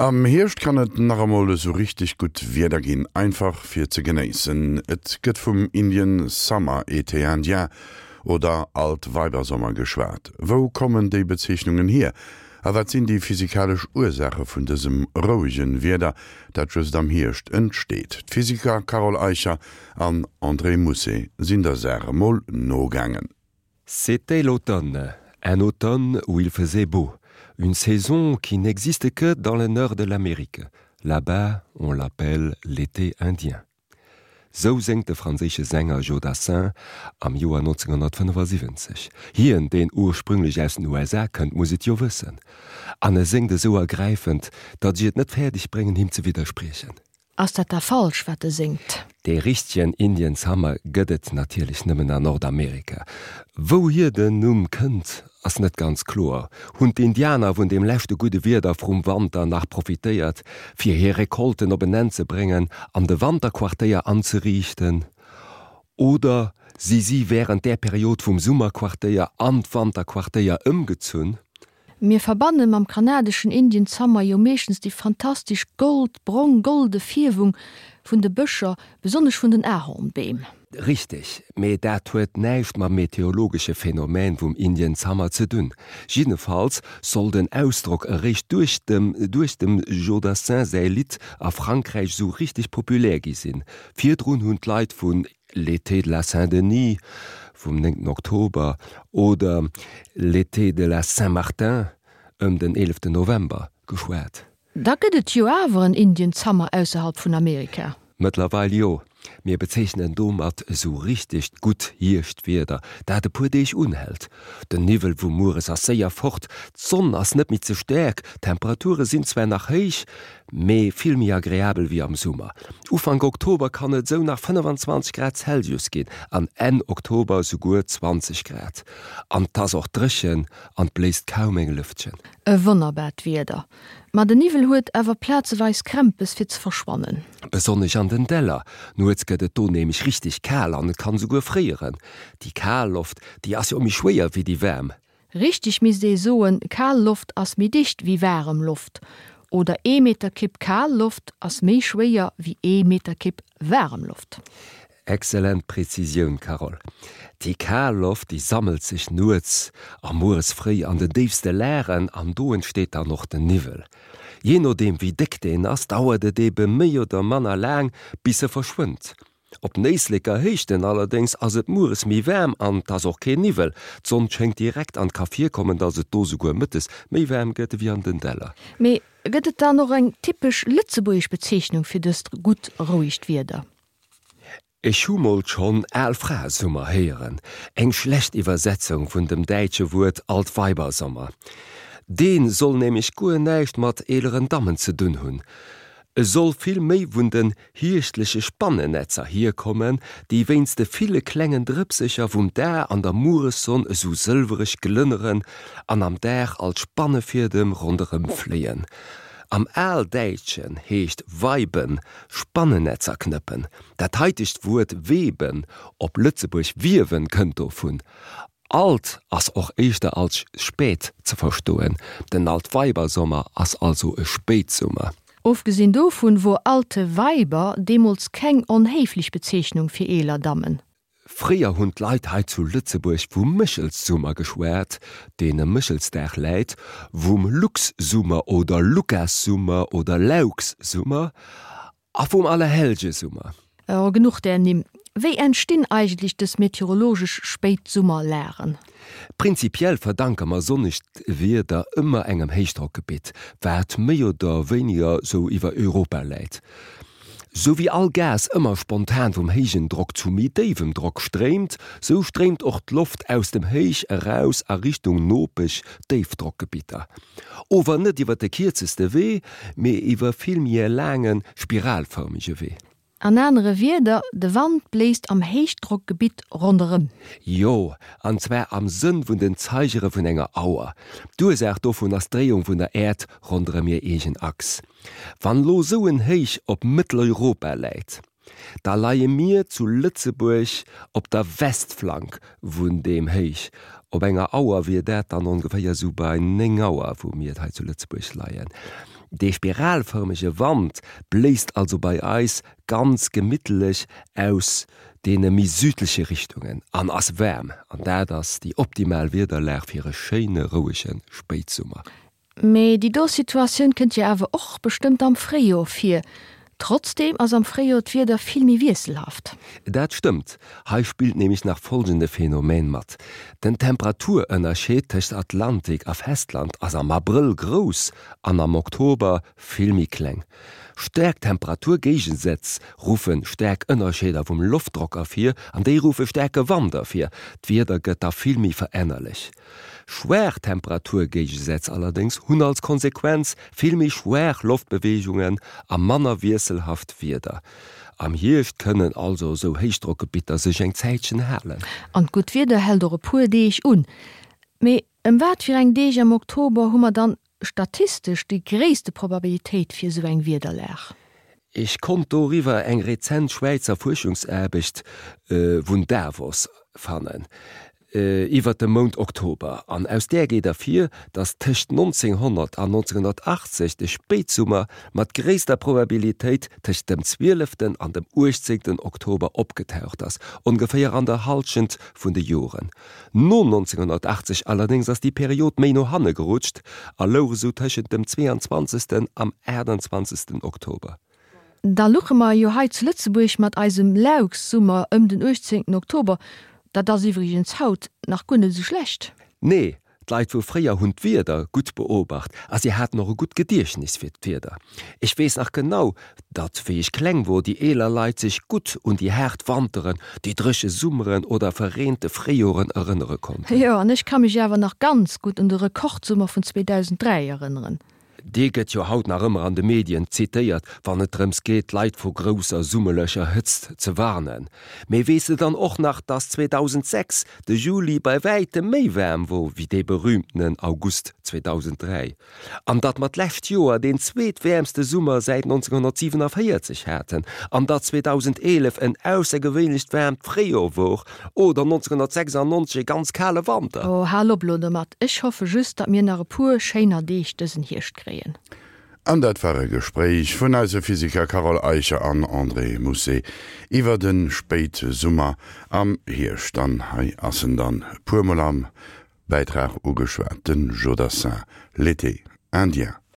Am Hierscht kann et nach emol esou richteg gutt Wieder ginn, einfach fir ze genéissen. Et gëtt vum Indian Summer, Été indien oder Altweibersommer geschwat. Wou kommen déi Bezeechnungen hier a wat sinn déi physikalesch Ursaache vun dësem rouege Wieder, dat just am Hierscht entsteet? D'Physiker Carole Eicher an André Mousset sinn der Saach emol nogaangen. C'était l'automne, un automne où il faisait beau, une saison qui n'existe que dans le nord de l'Amérique. Là-bas, on l'appelle l'été indien. Sou séngt de franséische Sänger Joe Dassin am Joer 1975. Hien, deen ursprünglech aus den USA kënnt, muss et jo wëssen. An e séngt esou ergräifend, datt ech et net fäerdeg bréngen, him ze widderspriechen. Ass dat da falsch, wat e séngt? Dee richtegen Indian Summer gëtt et natierlech nëmmen an Nordamerika. Wouhier den Numm kënnt, ass net ganz kloer. Hunn d'Indianer vun deem leschte gudde Wieder vrum Wanter nach profitéiert, fir hir Recolten op en Enn ze bréngen an de Wanterquartéier anzeriichten? Oder si si wärend där Period vum Summerquartéier an d'Wanterquartéier ëmgezunn? Mir verbanne mam kanadeschen Indian Summer jo meeschtens déi fantastesch gold-brong-golde Fierwung vun de Bëscher, besonnesch vun den Ahornbeem. Richteg, mee dat huet näischt mam meteorologesche Phänomen vum Indian Summer ze dunn. Jiddefalls soll den Ausdrock eréischt duerch dem duerch dem Joe Dassin säi Lidd a Frankräich sou richteg populär gi sinn. Virdrun hunn d'Leit vun L'été de la Saint-Denis vum 9 Oktober oder L'été de la Saint-Martin ëm den 11 November geschwat. Da gëtt et jo awer en Indian Summer ausserhalb vun Amerika. Mëttlerweil jo. Mir bezeechnen domat esou richtegt gutt Hierschtwieder, dat e puer Deeg unhält. Den Niwwel vu mueres ass séier fort, d'Sonn ass net méi ze staark, d'Temperature sinn zwar nach héich, mee vill méi agreabel wéi am Summer. Ufank Oktober kann et esou nach 25 Grad Celsius ginn an Enn Oktober esouguer 20 Grad. An 't ass och dréchen an 't bléist kaum eng Lëftchen. E wonnerbart Wieder, ma de Niwwel huet awer plazeweis Krämpes fir ze verschwannen. Besonnesch an den Däller. Nuets gëtt et do nämlech richteg kal an et kann esouguer fréieren. Déi kal Loft, déi ass jo méi schwéier wéi déi waarm. Richteg misst ee soen, kal Loft ass méi dicht wéi waarem Loft, oder ee Meterkibb kal Loft ass méi schwéier wéi ee Meterkibb waarem Loft. Excellent Präzisioun, Carole. Déi kal Loft, déi sammelt sech nuets a mueres fréi an den déifste Lagen an do entsteet dann och den Niwwel. Jee nodeem wéi déck deen ass, dauert et ebe méi oder manner laang bis e verschwënnt. Op den Éisleker Héichten allerdéngs ass et mueres méi waarm an 't ass och keen Niwwel. D'Sonn schéngt direkt an 't ka virkommen, dass et do souguer mëttes méi waarm gëtt ewéi an den Däller. Mee gëtt et dann och eng typesch lëtzebuergesch Bezeechnung fir dëst gutt, rouegt Wieder? Ech hu mol schonn Al-Fra-Summer héieren, eng schlecht Iwwersetzung vun dem däitsche Wuert Altweibersommer. Dee soll nämlech guer näischt mat eeleren Dammen ze dunn hunn. E soll vill méi vun den hierschtleche Spannennetzer hierkommen, déi wéinst de ville klengen Drëpsecher vum Dag an der Mueressonn esou sëlwereg glënneren an am Dag als Spannefiedem ronderëm fléien. Am Aldäitschen heescht weiben Spannennetzer knëppen. Dat haitegt Wuert weben, op Lëtzebuerg wiewen, kënnt dovun. Alt ass och éischter als spät ze verstoen. Den Altweibersommer ass also e Spéitsummer. Ofgesinn dovun wor alte Weiber deemools keng onhéiflech Bezeechnung fir eeler Dammen. Fréier hunn d'Leit hei zu Lëtzebuerg vum Méchelssummer geschwat, deen ëm Méchelsdag läit, vum Luxsummer oder Lukassummer oder Laukssummer a vum Allerhellgesummer. Oh, genuch där Nimm. Wéi entstinn eigentlech dës meteorologesch Spéitsummerlagen? Prinzipiell verdanke mer sonnegt Wieder ëmmer engem Héichdrockgebitt, wat méi oder wéiniger sou iwwer Europa läit. Sou wéi all Gas ëmmer spontan vum héijen Drock zu méi déiwem Drock stréimt, sou stréimt och d'Loft aus dem Héich eraus a Richtung nopesch Déifdrockgebitter. Ower net iwwer de kierzeste Wee, mee iwwer vill méi e laange spiralfërmege Wee. An anere Wierder, de Wand bléist am Héichdrockgebitt ronderëm. Jo, an zwar am Sënn vun den Zeigere vun enger Auer. D'Ursaach dovun ass d'Dréiung vun der Äerd ronderëm hir eegen Achs. Wann lo sou en Héich op Mëtteleuropa läit, da leie mir zu Lëtzebuerg op der Westflank vun deem Héich. Op enger Auer wier dat dann ongeféier sou bei 9 Auer, wou mir hei zu Lëtzebuerg leien. Dee spiralfërmege Wand bléist also bei eis ganz gemittlech aus deene méi südleche Richtungen an ass waarm, an dat ass déi optimal Wiederlag fir e schéine rouege Spéitsummer. Mee déi do Situatioun kënnt jo awer och bestëmmt am Fréijoer vir. Trotzdeem ass am Fréijoer d'Wieder vill méi wiesselhaft. Dat stëmmt. Hei spillt nämlech nach folgende Phänomen mat, Den Temperaturënnerscheed tëscht Atlantik a Festland ass am Abrëll grouss an am Oktober vill méi kleng. Staark Temperaturgéigesätz ruffe staark Ënnerscheeder vum Loftdrock ervir an déi ruffe staarke Wand ervir. D'Wieder gëtt da vill méi verännerlech. Schwaach Temperaturgéigesätz allerdéngs hunn als Konsequenz vill méi schwaach Loftbeweegungen a manner wiesselhaft Wieder. Am Hierscht kënnen also esou Héichdrockgebitter sech eng Zäitchen halen. An d'gutt Wieder hält och e puer Deeg un. Mee ëm wat fir eng Deeg am Oktober hu mer dann statistesch déi gréisste Probabilitéit fir esou eng Wiederlag? Ech konnt doriwwer eng rezent Schwäizer Fuerschungsaarbecht vun Davos fannen iwwert de Mount Oktober, an aus där geet ervir, datt tëscht 1900 an 1980 de Spéitsummer mat gréisster Probabilitéit tëscht dem zwieleften an dem uechtzéngten Oktober opgetaucht ass, ongeféier an der Hallschent vun de Joren. No 1980 allerdéngs ass déi Period méi no hanne gerutscht a louch esou tëschent dem 22. am 28. Oktober. Da luche mer jo hei zu Lëtzebuerg mat eisem Laux-Summer ëm den 18. Oktober. Dat ass iwwregens haut nach guer net esou schlecht. Nee, d'Leit vu fréier hunn d'Wieder gutt beobacht a si haten och e gutt Gediechtnis fir d'Wieder. Ech weess nach genau, datt wéi ech kleng wor, déi eeler Leit sech gutt un déi haart Wanteren, déi dréche Summeren oder verreente Fréijoren erënnere konnten. Jo, an ech ka mech awer nach ganz gutt un de Rekordsummer vun 2003 erënneren. Dee gëtt jo haut nach ëmmer an de Medien zitéiert, wann et drëms geet, d'Leit vu grousser summerlecher Hëtzt ze warnen. Mee weess de dann och nach, dass 2006 de Juli bei wäitem méi waarm wor wéi dee berühmtenen August 2003? An datt mer d'lescht Joer deen zweetwäermste Summer säit 1947 haten? An datt 2011 en aussergewéinlecht waarmt Fréijoer wor oder 1996 e ganz kale Wanter? Oh, hal op elo domat. Ech hoffe just, datt mir nach e puer schéiner Deeg dësen Hierscht kréien. An dat war e Gespréich vun eise Physiker Carole Eicher an André Mousset iwwer de Spéitsummer am Hierscht. An hei ass en dann e puermol am Bäitrag ugeschwat, de Jodassin, L'été indien.